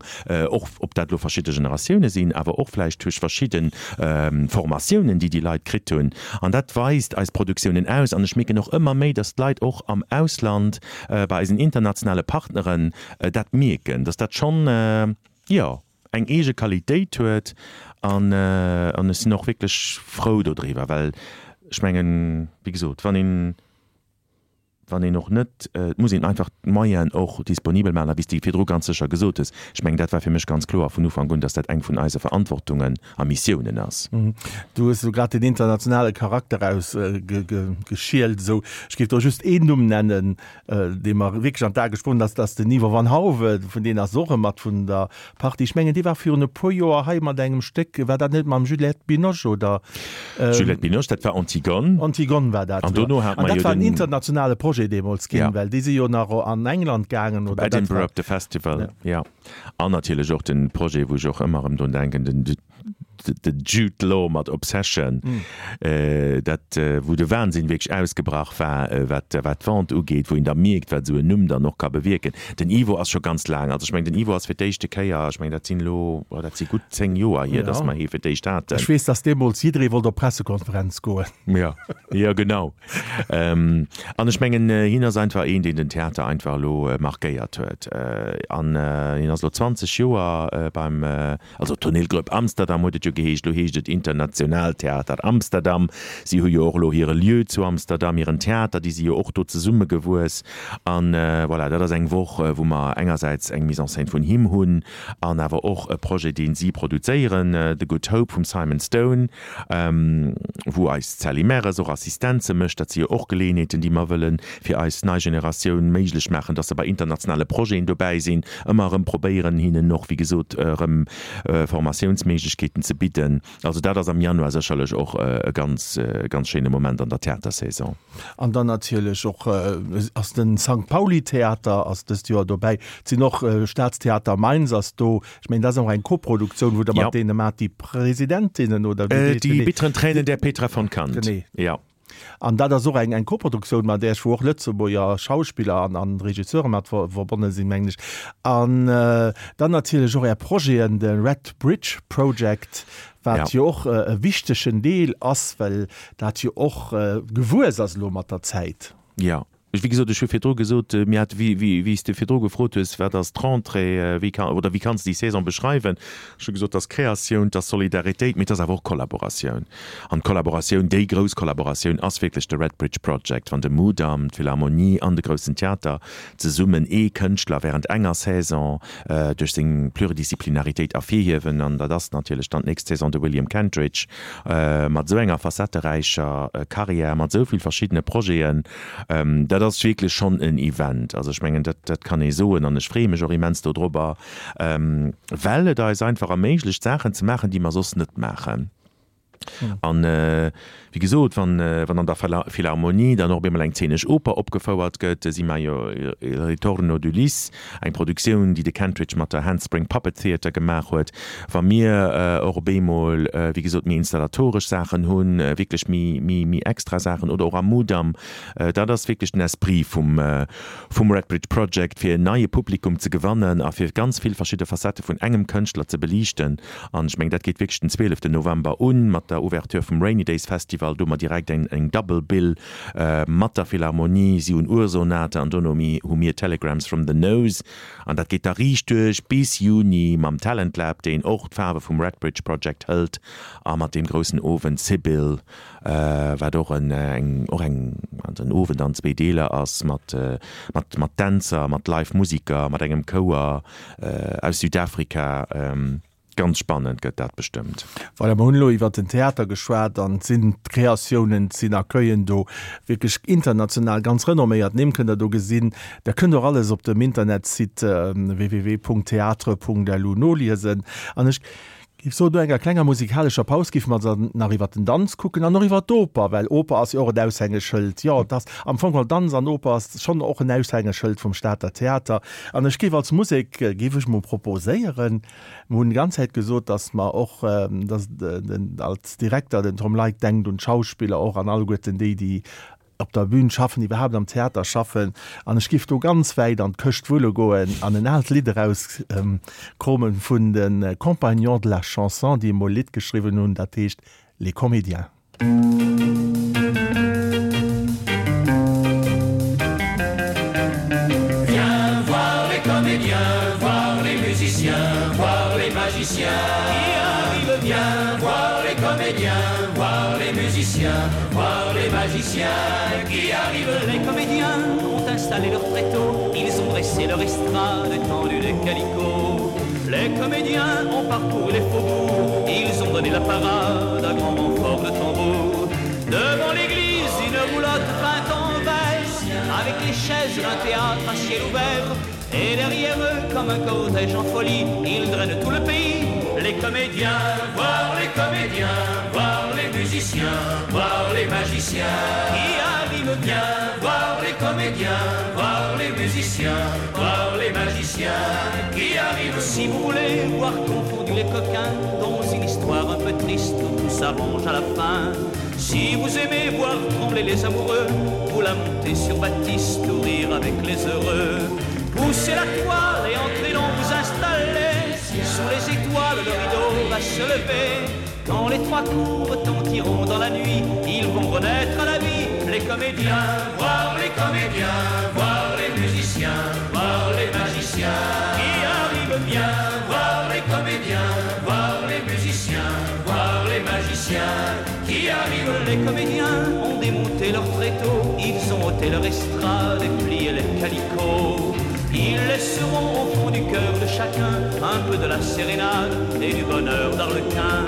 och ob dat elo verschidde Generatioune sinn, awer och vläicht duerch verschidde Formatiounen, déi déi Leit kritt hunn. An dat weist eis Produktiounen aus. An ech mierken och ëmmer méi, dass d'Leit och am Ausland, bei eisen internationale Partneren dat mierken, dass dat schonn, jo, eng eege Qualitéit huet. An ech sinn och wierklech frou dodriwwer, well ech mengen, wéi gesot, wann een, wann een och net, et muss een einfach d'Moyenen och disponibel maachen, a wéi s de virdru ganz sécher gesot hues, ech mengen, dat war fir mech ganz kloer vun Ufank un, dass dat eng vun eise Verantwortungen a Missiounen ass. Du hues elo grad den internationale Charakter erausgeschielt esou. Ech géif do just een Numm nennen, dee mer wierklech an d'A gesprongen ass, dat ass den Ivo van Hove, vun deen ass och e mat vun der Partie. Ech mengen, dee war virun e puer Joer hei mat engem Stéck, war dat net mam Juliette Binoche oder? Juliette Binoche, dat war Antigone. Antigone war dat, An dono hat An mer dat jo war en den. internationale Projet deemools ginn, Ja. well déi si jo nach an England gaangen Op oder dat Edinburgh war. op de Festival, Ja. ja. An natierlech och den Projet, wou ech och ëmmer erëm drun denken, den de Jude Law mat Obsession, dat wou de Wahnsinn wierklech ausgebrach war, wat wat d'Vente ugeet, wou een da mierkt, wat esou en Numm dann och ka bewierken. Den Ivo ass scho ganz laang, also ech mengen, den Ivo ass fir d'éischte Kéier, ech mengen, dat sinn elo, oh, dat si gutt 10 Joer hier, dass mer hie fir d'éischt haten. Ech weess, dass deemools jidderee wollt op d'Pressekonferenz goen. Jo, jo genau. An ech mengen, hien ass einfach een, deen den Theater einfach elo markéiert huet. An hien ass elo 20 Joer beim, also Toneelgroep Amsterdam huet et jo. geheescht, elo heescht et International Theater Amsterdam. Si hu jo och elo hire Lieu zu Amsterdam, hiren Theater, déi si jo och do zesummegewuess. An voilà, dat ass eng Woch, wou mer engersäits eng Mise en scène vun him hunn an awer och e Projet, dee si produzéieren, The Good Hope vum Simon Stone, wou eis d'Sally Merres och Assistenze mécht. Dat si jo och Geleeënheeten, déi mer wëlle fir eis nei Generatioun méiglech maachen, dass se bei internationale Projeten dobäi sinn, ëmmer erëm probéieren, hinnen och, wéi gesot, erëm Formatiounsméiglechkeeten ze bidden. Also dat ass am Januar sécherlech och e ganz, ganz schéine Moment an der Theatersaison. An dann natierlech och ass de Sankt Pauli Theater ass dëst Joer dobäi. Et sinn och Staatstheater Mainz ass do. Ech mengen, dat ass och eng Koproduktioun, wou Der mat deene maacht, déi Presidentinnen oder wéi heescht Die genee? bitteren Tränen der Petra von Kant. Genee. Ja. An dat ass och eng eng Koproduktioun mat Iech, wou och Lëtzebuerger Schauspiller an an Regisseure mat verbonne sinn, mengen ech. An dann natierlech och Är Projeten, de Red Bridge Project, wat jo och e wichtegen Deel ass, well dat jo och gewuess ass elo mat der Zäit. Jo, wéi gesot, ech hu virdru gesot, mir hate, wéi, wéi, wéi s de virdru gefrot hues, wat ass d'Rentrée, wéi ka, oder wéi kanns de déi Saison beschreiwen, ech hu gesot, et ass Kreatioun, et ass Solidaritéit, mee et ass awer och Kollaboratioun. An d'Kollaboratioun, déi grouss Kollaboratioun ass wierklech de Red Bridge Project, wann de Mudam, d'Philharmonie an de Groussen Theater zesummen ee Kënschtler während enger Saison duerch seng Pluridisciplinaritéit ervirhiewen, an dat ass natierlech dann d'nächst Saison de William Kentridge mat esou enger facetteräicher Carrière, mat esou vill verschiddene Projeten, dat ass wierklech schonn en Event. Also ech mengen, dat dat kann ee soen an ech freeë mech och immens dodrobber, well et eis einfach erméiglecht, Saachen ze maachen, déi mer soss net maachen. An wéi gesot, wann wann an der Philharmonie dann och op eemol eng zeenesch Oper opgefouert gëtt, Si maio il ritorno d'Ulysse, eng Produktioun, déi de Kentridge mat der Handspring Puppet Theatre gemaach huet, wa mir och op eemol, wéi gesot, méi installatoresch Saachen hunn, wierklech méi méi méi extra Saachen oder och am Mudam, dat ass wierklech den Esprit vum vum Red Bridge Project, fir en neie Publikum ze gewannen a fir ganz vill verschidde Facettë vun engem Kënschtler ze beliichten. An ech mengen, dat geet wierklech den 12 November un mat der Ouverture vum Rainy Days Festival. Do hu mer direkt eng eng Double Bill mat der Philharmonie. Si hunn Ursonate an dono hu mir Telegrams from the Nose. An dat geet da riicht duerch bis Juni mam Talent Lab, deen och d'Faarwe vum Red Bridge Project hëlt, a mat deem groussen Owend Sibyl, wat och en eng och eng also en Owend an zwee Deeler ass mat mat mat Dänzer, mat Live Musiker, mat engem Chouer aus Südafrika. Ganz spannend gëtt dat bestëmmt. Voilà, mer hunn elo iwwert den Theater geschwat an et sinn Kreatiounen, et sinn Accueillen do, wierklech international ganz renomméiert Nimm kënnt Der do gesinn. Der kënnt och alles op dem Internetsite www.theatre.lu noliesen. An ech géif soen, no enger klenger musikalescher Paus géife mer dann nach iwwert den Danz kucken an och iwwert d'Oper, well Oper ass jo och en Aushängeschëld. Jo, et ass am Fong geholl Danz an Oper ass schonn och en Aushängeschëld vum Stater Theater. An ech géif als Musek, géif ech mol proposéieren, Mer hunn déi ganz Zäit gesot, datt mer och, datt den als Direkter, den Tom Leick denkt un d'Schauspiller och an alleguerten déi, déi op der Bühn schaffen, iwwerhaapt am Theater schaffen. An ech géif do ganz wäit an d'Këscht wulle goen an en aalt Lidd erauskromen vun de Compagnons de la Chanson, déi emol e Lidd geschriwwen hunn, dat heescht Les Comédiens. Viens voir les comédiens, voir les musiciens, voir les magiciens qui arrivent. Viens voir les comédiens, voir les musiciens, voir les magiciens qui arrivent. Les comédiens ont installé leur tréteau, ils ont dressé leur estrade, étendu des calicots. Les comédiens ont parcouru les faubourgs, ils ont donné la parade à grand renfort de tambour. Devant l'église, une roulotte peinte en vert, avec les chaises d'un théâtre à ciel ouvert. Et derrière eux, comme un cortège en folie, ils drainent tout le pays. Les comédiens, voir les comédiens, voir les musiciens, voir les magiciens qui arrivent bien, voir les comédiens, voir les musiciens, voir les magiciens qui arrivent. Si vous voulez voir confondu les coquins dans une histoire un peu triste où tout s'arrange à la fin, si vous aimez voir trembler les amoureux, vous la montez sur Baptiste ou rire avec les heureux. Poussez la toile et entrez donc vous installer Sous les étoiles, le rideau va se lever. Quand les trois coups retentiront dans la nuit, ils vont renaître à la vie. Les comédiens, voir les comédiens, voir les musiciens, voir les magiciens qui arrivent bien, voir les comédiens, voir les musiciens, voir. comédiens ont démonté leur tréteau, ils ont ôté leur estrade et plié les calicots. Ils laisseront au fond du cœur de chacun un peu de la sérénade et du bonheur d'Arlequin.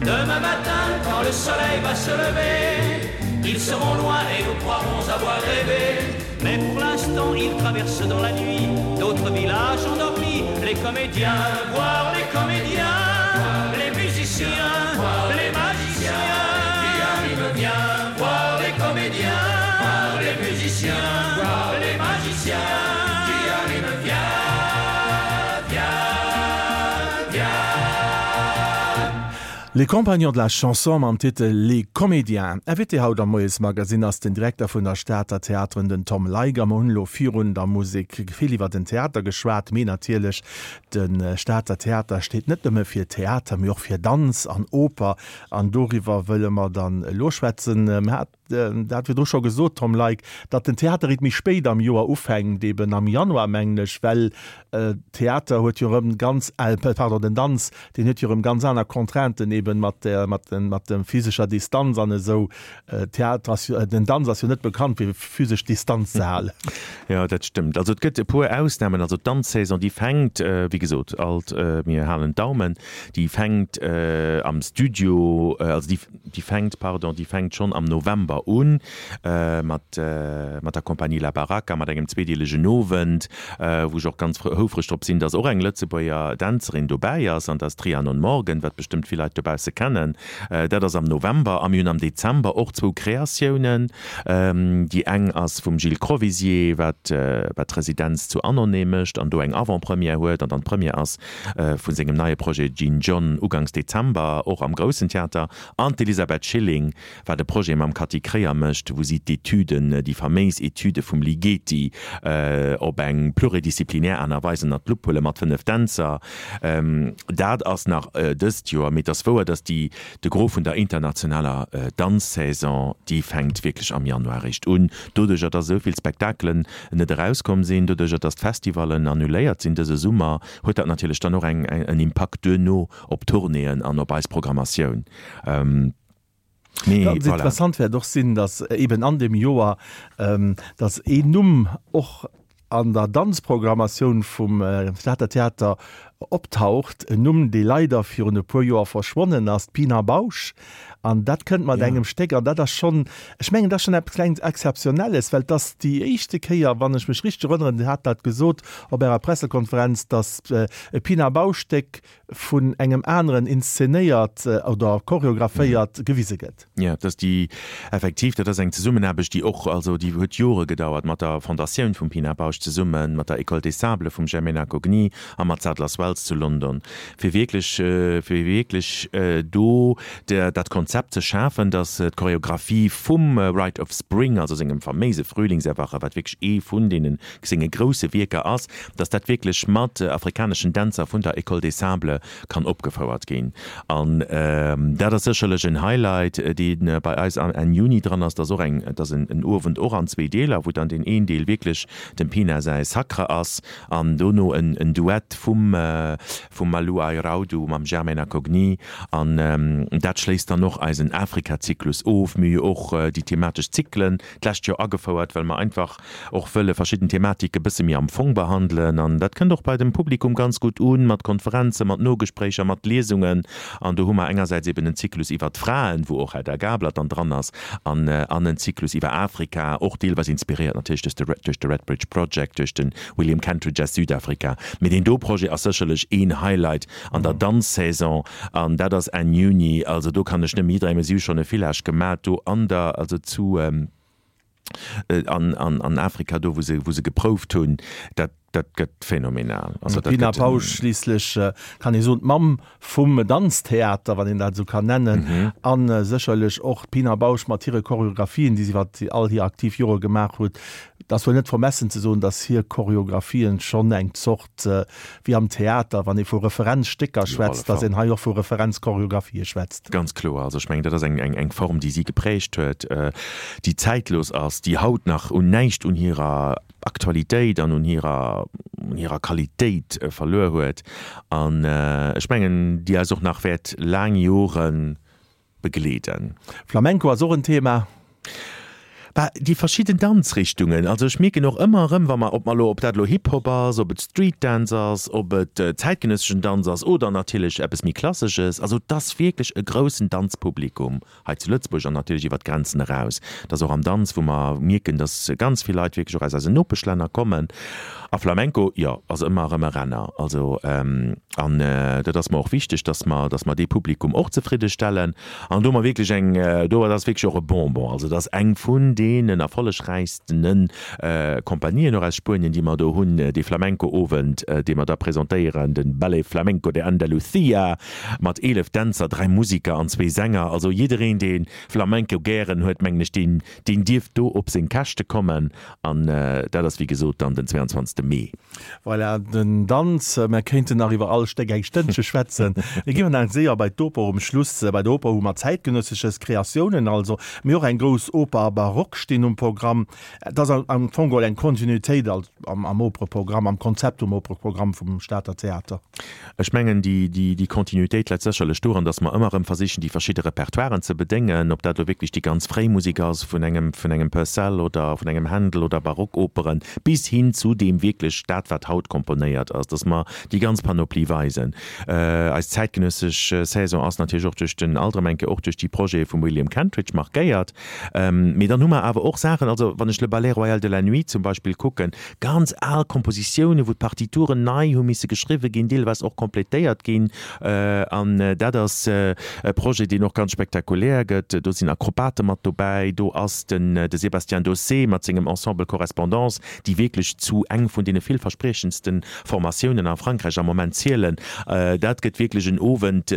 Demain matin, quand le soleil va se lever, ils seront loin et nous croirons avoir rêvé. Mais pour l'instant, ils traversent dans la nuit d'autres villages endormis, les comédiens, voir les comédiens, les musiciens, les magiciens qui arrivent bien, voir les comédiens, les musiciens, voir les magiciens qui arrivent bien, bien, bien. Les Compagnons de la Chanson mam Titel Les Comédiens. Invité haut am Moiesmagazine ass den Direkter vun der Stater Theateren, den Tom Leiger. Mer hunn elo virun der Musek vill iwwer den Theater geschwat, mee natierlech de Stater Theater steet net nëmme fir Theater, mee och fir Danz an Oper an doriwwer wëlle mer dann elo schwätzen. Mer hat dat virdru scho gesot, Tom Leick, datt den Theater eréischt méi spéit am Joer ufänkt, eben am Januar mengen ech, well Theater huet jo erëm ganz, pardon, den Danz, deen huet jo erëm ganz aner Contrainten eben mat der, mat den, mat der physescher Distanz an esou. Theater ass jo, den Danz ass jo net bekannt fir physesch Distanz ze halen. Jo, dat stëmmt. Also et gëtt e puer Ausnamen. Also d'Danzsaison, déi fänkt, wéi gesot, alt, mir halen d'Daumen, déi fänkt am Studio, also déi, Déi fänkt, pardon, déi fänkt schonn am November un, mat, mat der Compagnie La Baracca, mat engem zweedeelegen Owend, wou ech och ganz houfreg drop sinn, dass och eng Lëtzebuerger Dänzerin dobäi ass, an dat ass d'Rhiannon Morgan, wat bestëmmt vill Leit dobausse kennen. Dat ass am November. A mir hunn am Dezember och zwou Kreatiounen. Déi eng ass vum Gilles Crovisier, wat, wat d'Residenz zu Annonay mécht an do eng Avant-première huet, an dann d'Première ass vu sengem neie Projet Gin John ugangs Dezember, och am Groussen Theater, an d'Elisabeth Schilling, wat e Projet mam Cathy Kreyer mécht, wou si d'Etüden, déi faméis Etüde vum Ligeti op eng pluridisziplinär Aart a Weis ënnert d'Lupp huele mat 5 Dänzer. Dat ass nach dëst Joer, mee et ass wouer, datt déi, de Gros vun der internationaler Danzsaison, déi fänkt wierklech am Januar eréischt un. Doduercher, datt esou vill Spektakelen net erauskomm sinn, doduercher, datt d'Festivallen annuléiert sinn dëse Summer, huet dat natierlech dann och eng en Impakt duerno op d'Tournéeën an op eis Programmatioun. Mee Ganz voilà. Interessant wäert och sinn, datt eben an deem Joer, datt een Numm och an der Danzprogrammatioun vum Stater Theater optaucht, en Numm, dee leider virun e puer Joer verschwonnen ass, d'Pina Bausch. An dat kënnt mat engem Stéck, an dat ass schonn, ech mengen, dat ass schonn eppes klengt Exzeptionelles, well et ass déi éischte Kéier, wann ech mech richteg erënneren, Dir hat dat gesot op Ärer Pressekonferenz, datt e Pina Bausch-Stéck vun engem aneren inszenéiert oder choreographéiert gewise gëtt. Jo, dat ass déi, effektiv, dat ass eng Zesummenaarbecht, déi och, also déi huet Jore gedauert mat der Fondatioun vum Pina Bausch zesummen, mat der École des Sables vum Germaine Acogny a mat Sadler's Wells zu London, fir wierklech, fir wierklech do dat Konzept ze schafen, datt d'Choreographie vum Rite of Spring, also sengem faméise Frühlingserwache, wat wierklech ee vun deene senge grousse Wierker ass, datt dat wierklech mat afrikaneschen Dänzer vun der École des Sables kann opgefouert ginn. An dat ass sécherlech en Highlight, dee bei eis Enn Juni dran ass. Dat ass och eng, dat ass en Owend och an zwee Deeler, wou dann deen een Deel wierklech dem Pina säi Sacre ass an dono en Duett vum vum Malou Airaudo mam Germaine Acogny. An dat schléisst dann och eisen Afrika-Zyklus of. Mir hu jo och déi thematesch Zyklen d'lescht Joer agefouert, well mer einfach och wëlle verschidden Thematike bësse méi am Fong behandelen. An dat kënnt och bei dem Publikum ganz gutt un, mat Konferenzen, mat Nogespréicher, mat Liesungen. An do hu mer engersäits eben en Zyklus iwwert d'Fraen, wou och Hedda Gabler dann dran ass, an an en Zyklus iwwer Afrika, och deelweis inspiréiert natierlech duerch de duerch de Redbridge Project, duerch de William Kentridge aus Südafrika. Mee deen do Projet ass sécherlech een Highlight an der Danzsaison an dat ass Enn Juni. Also do kann ech nëmme jidderengem, si hu schonn e Village gemat do an der, also zu an an Afrika do wou se wou se geprouft hunn, dat dat gëtt phänomenal. Also dat D'Pina Bausch schliisslech kann ee soen d'Mamm vum Danztheater, wann een dat esou kann nennen, a sécherlech och d'Pina Bausch mat hire Choreographien, déi si iwwer all hir aktiv Jore gemaach huet. Et ass wuel net vermessen ze soen, datt hir Choreographien schonn eng Zort, wéi am Theater, wann ee vu Referenzstécker schwätzt, datt een hei och vu Referenzchoreographië schwätzt. Ganz kloer. Also ech mengen, dat ass eng, eng Form, déi si geprägt huet, déi zäitlos ass, déi haut nach un näischt un hirer Aktualitéit an un hirer, un hirer Qualitéit verluer huet an ech mengen, déi eis och nach wäert laang Joren. Begleeden. Flamenco ass och en Thema. Bah, déi verschidden Danzrichtungen. Also ech mierken och ëmmer erëm, wa mer, ob mer elo, ob dat elo Hip-Hop ass, ob et Street Dance ass, ob et zäitgenësseschen Danz ass oder natierlech eppes méi Klassesches, also et ass wierklech e groussen Danzpublikum hei zu Lëtzebuerg an natierlech iwwer d'Grenzen eraus. Et ass och am Danz, wou mer mierken, datt ganz vill Leit wierklech och aus eisen Nopeschlänner kommen. A Flamenco, jo, ass ëmmer erëm e Renner. Also, an dat ass mer och wichteg, datt mer, datt mer dee Publikum och zefridde stellen. An do hu mer wierklech eng, do ass wierklech och e Bonbon. Also dat ass eng vun deenen erfollegräichstene Compagnien och aus Spuenien, déi mer do hunn, dee Flamenco-Owend, dee mer da presentéieren, de Ballet Flamenco de Andalucía mat 11 Dänzer, 3 Musiker an zwee Sänger. Also jiddereen, dee Flamenco gären huet, mengen ech, deen, deen dierf do op seng Käschte kommen. An dat ass wéi gesot dann den 22. Mee. Voilà, den Danz. Mer kéinten nach iwwer all Stéck eng Stënnche schwätzen. Mir ginn nach séier bei d'Oper um Schluss. Bei der Oper hu mer zäitgenëssesches, Kreatiounen also, mee och eng grouss Oper a Barock stinn um Programm. Et ass am Fong geholl eng Kontinuitéit am Opereprogramm, am Konzept vum Opereprogramm vum Stater Theater. Ech mengen, déi Kontinuitéit läit sécherlech doran, datt mer ëmmer erëm versichen, déi verschidde Repertoiren ze bedéngen, ob dat elo wierklech déi ganz fréi Musek ass vun engem, vun engem Purcell oder vun engem Händel oder Barockoperen, bis hin zu deem wierklech dat, wat haut komponéiert ass, datt mer déi ganz Panoplie weisen. Eis zäitgenëssesch Saison ass natierlech och duerch den, alt erëm eng Kéier och duerch déi Projete vum William Kentridge markéiert. Mee dann hu mer awer och Saachen, also wann ech Le Ballet Royal de la Nuit zum Beispill kucken, Ganz al Kompositiounen, wou d'Partituren nei hu misse geschriwwe ginn, deelweis och kompletéiert ginn. An dat ass e Projet, deen och ganz spektakulär gëtt. Do sinn Akrobate mat dobäi, do ass den de Sébastien Daussé mat sengem Ensemble Correspondance, déi wierklech zu eng vun deene villverspriechendste Formatiounen a Frankräich am Moment zielen. Dat gëtt wierklech en Owend,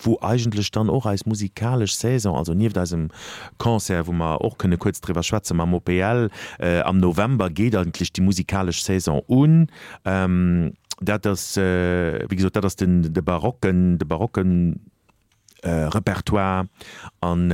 wou eigentlech dann och eis musikalesch Saison, also nieft eisem Concert, wou mer och kënne kuerz driwwer schwätze mam OPL, am November geet eigentlech déi musikalesch Saison un. Dat ass, wéi gesot, dat ass den, de barocken, de barocken Repertoire. An,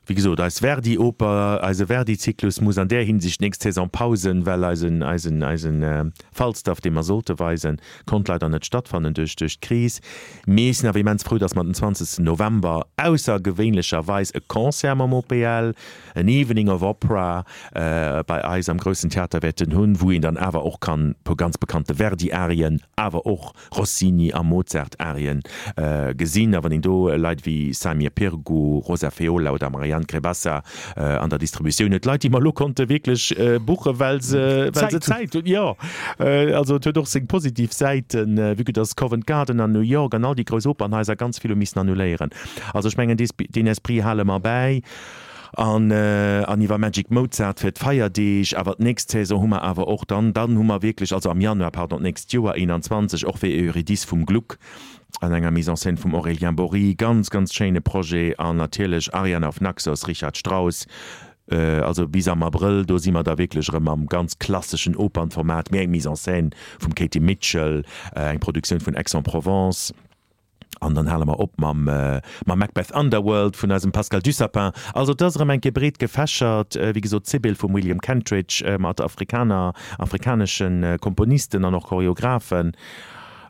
wéi gesot, eis Verdi-Oper, eise Verdi-Zyklus muss an där Hinsicht d'nächst Saison pausen, well eisen, eisen, eisen Falstaff, dee mer sollte weisen, konnt leider net stattfannen duerch duerch d'Kris. Mee ech sinn awer immens frou, dass mer den 20 November aussergewéinlecherweis e Concert mam OPL, en Evening of Opera, bei eis am Groussen Theater wäerten hunn, wou een dann awer och kann e puer ganz bekannte Verdi-Arien, awer och Rossini a Mozart-Arien gesinn. A wann een do Leit wéi Samir Pirgu, Rosa Feola oder Marianne Crebassa an der Distributioun huet, Leit, déi mer elo konnte wierklech buchen, well se, well se Zäit hunn. Jo, also et huet och seng positiv Säiten, vue que dass Covent Garden an New York an all déi grouss Opernhaiser ganz vill hu missen annuléieren. Also ech mengen, deen Esprit hale mer bäi. An, an iwwer Magic Mozart fir d'Feierdeeg. Awer d'nächst Saison hu mer awer och dann, dann hu mer wierklech, also am Januar, pardon, d'nächst Joer, 21, och fir Eurydice vum Gluck an enger Mise en scène vum Aurélien Bory, ganz, ganz schéine Projet. An natierlech Ariane auf Naxos, Richard Strauss. Also bis am Abrëll, do si mer da wierklech erëm am ganz klasseschen Opernformat, mee eng Mise en scène vum Katie Mitchell, eng Produktioun vun Aix-en-Provence. An dann hale mer op mam mam Macbeth Underworld vun eisem Pascal Dussapin. Also et ass erëm eng Kéier breet gefächert. Wéi gesot, d'Sibyl vum William Kentridge mat Afrikaner, afrikanesche Komponisten an och Choreographen.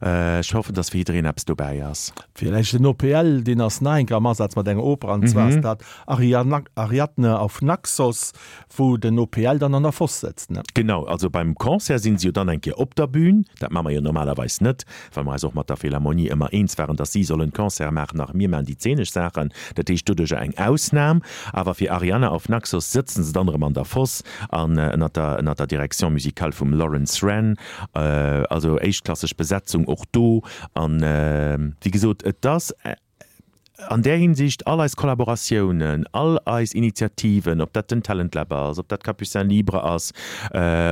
Ech hoffen, dass fir jiddereen eppes dobäi ass. Villäicht den OPL, deen ass nach eng Kéier am Asaz mat enger Oper, an zwar ass dat Ariadne auf Naxos. Wou den OPL dann an der Foss sëtzt, ne? Genau, also beim Concert sinn se jo dann eng Kéier op der Bühn. Dat maache mer jo normalerweis net, well mer eis och mat der Philharmonie ëmmer eens waren, dass si sollen d'Concerte maachen a mir maachen déi zeenesch Saachen. Dat heescht doduercher eng Ausnam. Awer fir Arianna auf Naxos sëtzen se dann erëm an der Foss an ënnert der ënnert der Direction musicale vum Lawrence Wren. Also éischtklasseg Besetzung och do. An wéi gesot, et ass. An där Hinsicht, all eis Kollaboratiounen, all eis Initiativen, ob dat den Talent Lab ass, ob dat Capucins Libres ass,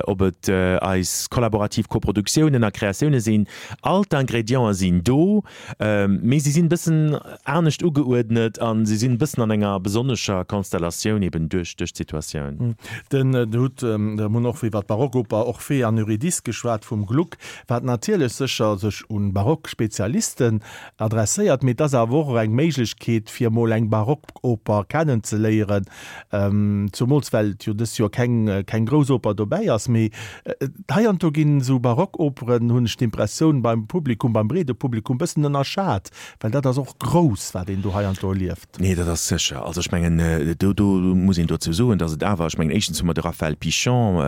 ob et eis kollaborativ Koproduktiounen a Kreatioune sinn, all d'Ingrédienten sinn do, mee si sinn e bëssen anescht ugeuerdnet a si sinn e bëssen an enger besonnescher Konstellatioun eben duerch d'Situatioun. Den hutt, mir hunn och iwwer d'Barockoper Orphée an Eurydice geschwat vum Gluck, wat natierlech sécher sech un Barock-Spezialisten Adresséiert, mee et ass awer och eng Méiglechkeet. Méiglechkeet fir emol eng Barockoper kennenzeléieren, zumools well et jo dëst Joer keng keng grouss Oper dobäi ass. Mee heiansdo ginn esou Barockoperen, hunn ech d'Impressioun, beim Publikum, beim breede Publikum bëssen ënnerschat, well dat ass och grouss, wat een do heiansdo erlieft. Nee, dat ass sécher. Also ech mengen, do do muss een dozou soen, datt et awer, ech mengen éischtens hu mer de Raphaël Pichon,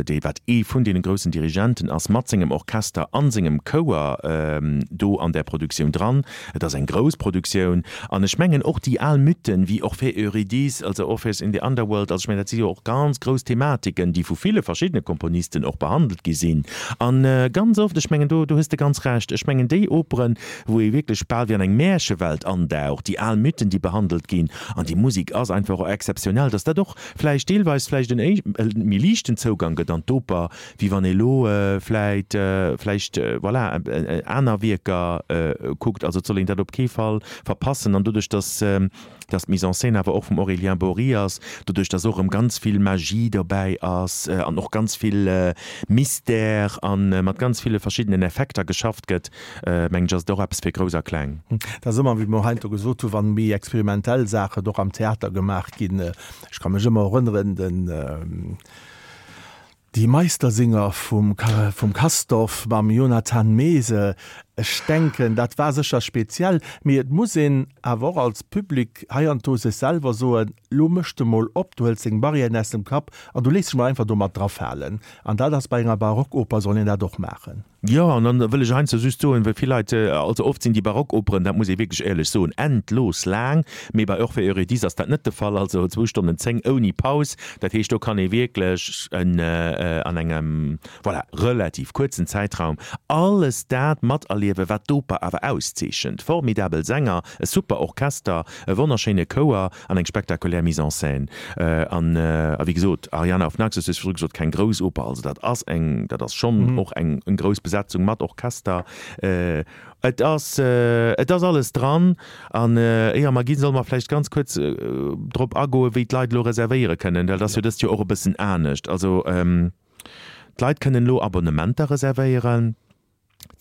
dee wat ee vun deene groussen Dirigenten ass, mat sengem Orchester a sengem Chouer do an där Produktioun dran. Et ass eng grouss Produktioun an ech mengen och déi al Mythen wéi Orphée, Eurydice, also Orpheus in the Underworld, also ech mengen dat si jo och ganz grouss Thematiken, déi vu ville verschiddene Komponisten och behandelt gi sinn. An ganz oft, ech mengen do do hues de ganz Recht, ech mengen déi Operen, wou ee wierklech bal wéi an eng Märchewelt andaucht, déi al Mythen, déi behandelt ginn an déi Musek ass einfach och exzeptionell, dass dat och vläicht deelweis vläicht en méi liichten Zougang gëtt an d'Oper, wéi wann ee lo vläit vläicht voilà aner Wierker kuckt. Also et soll een dat op kee Fall verpassen. An doduerch, dass dass d'Mise en scène awer och vum Aurélien Bory ass, doduerch, dass och erëm ganz vill Magie dobäi ass an och ganz vill Mystère a mat ganz ville verschiddenen Effekter geschafft gëtt, mengen ech, ass et och eppes fir Grouss a Kleng. Dat ass ëmmer, wéi mer heiansdo gesot hunn, wann méi experimentell Saachen och am Theater gemaach ginn. Ech ka mech ëmmer erënneren, den Die Meistersinger vum vum Castorf mam Jonathan Meese, ech denken, dat war sécher speziell, mee et muss een awer och als Public heiansdo sech selwer soen, Lo méchs de mol op, du hëls deng Barrièren aus dem Kapp an du léiss dech mol einfach domat drafalen. An dat ass bei enger Barockoper, soll een dat och maachen. Jo, an dann wëll ech heiansdo just soen, well vill Leit, also oft sinn déi Barockoperen, dat muss ee wierklech éierlech soen, endlos laang, mee bei Orphée Eurydice ass dat net de Fall, also zwou Stonnen 10 ouni Paus, dat heescht do kann ee wierklech en an engem, voilà, relativ kuerzen Zäitraum alles dat materliewen, wat d'Oper awer auszeechent, formidabel Sänger, e super Orchester, e wonnerschéine Chouer an eng spektakulär Mise en scène. An a wéi gesot, Ariane auf Naxos, du hues virdru gesot, keng grouss Oper, also dat ass eng, dat ass schonn och eng grouss Besetzung mat Orchester. Et ass, et ass alles dran. An éier mer ginn, solle mer vläicht ganz kuerz drop agoen, wéi d'Leit elo reservéiere kënnen, well dat ass jo dëst Joer och e bëssen anescht. Also d'Leit kënnen elo Abonnementer reservéieren.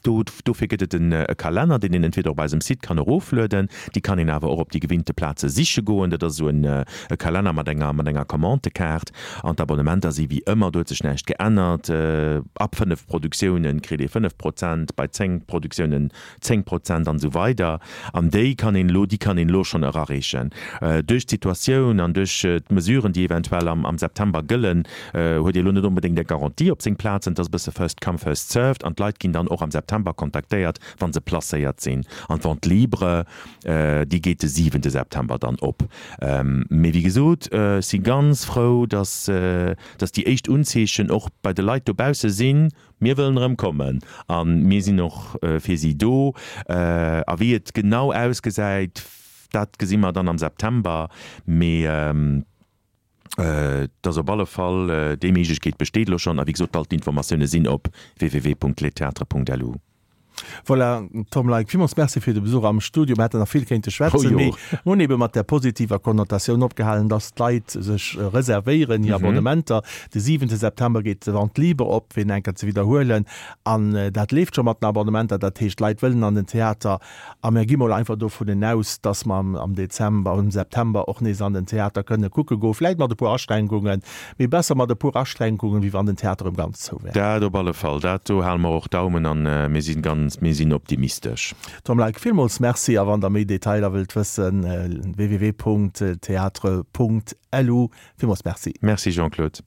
Do, dofir gëtt et en e Kalenner, deen een entweder op eisem Site kann eroflueden, déi kann een awer och op déi gewinnte Plaze siche goen. Dat ass esou en e Kalenner mat enger mat enger Commandekaart. An d'Abonnementer si wéi ëmmer, do huet sech näischt geännert. Ab 5 Produktiounen kritt ee 5 Prozent, bei 10 Produktiounen 10 Prozent an esou weider. An déi kann een elo, déi kann een elo schonn erareechen. Duerch d'Situatioun an duerch d'Mesuren, déi eventuell am am September gëllen, huet ee lo net onbedéngt eng Garantie op seng Plazen. Et ass e bësse first come, first served an d'Leit ginn dann och am September kontaktéiert, wa se placéiert sinn. An d'Vente libre, déi geet de siwente September dann op. Mee wéi gesot, ech si ganz frou, dass, dass déi éischt Unzeechen och bei de Leit dobausse sinn, Mir wëllen erëm kommen a mir sinn och fir si do. A wéi et genau ausgesäit, dat gesi mer dann am September. Mee. Et ass op alle Fall, déi Méiglechkeet besteet elo schonn. A wéi gesot, all d'Informatioune sinn op www.lestheatres.lu. Voilà, Tom Leick, villmools Merci fir de Besuch am Studio. Mir hätten nach vill kéinte schwätzen, mee mir hunn ebe mat där positiver Konnotatioun opgehalen, dass d'Leit sech reservéieren, hir Abonnementer. De siwente September geet d'Vente libre op, fir en eng Kéier ze widderhuelen. An dat leeft scho mat den Abonnementer. Dat heescht, d'Leit wëllen an den Theater. A mir gi mol einfach dovunnen aus, dass mer am Dezember, am September och nees an den Theater kënne kucke goen, vläit mat e puer Aschränkungen, mee besser mat e puer Aschränkungen, wéi wann den Theater erëm ganz zou wär. Dat op alle Fall. Dat do hale mer och Daumen an mir si ganz, mir sinn optimistesch. Tom Leick, villmools Merci a wann Der méi Detailer wëllt wëssen, www.theatre.lu. Villmools Merci. Merci Jean-Claude.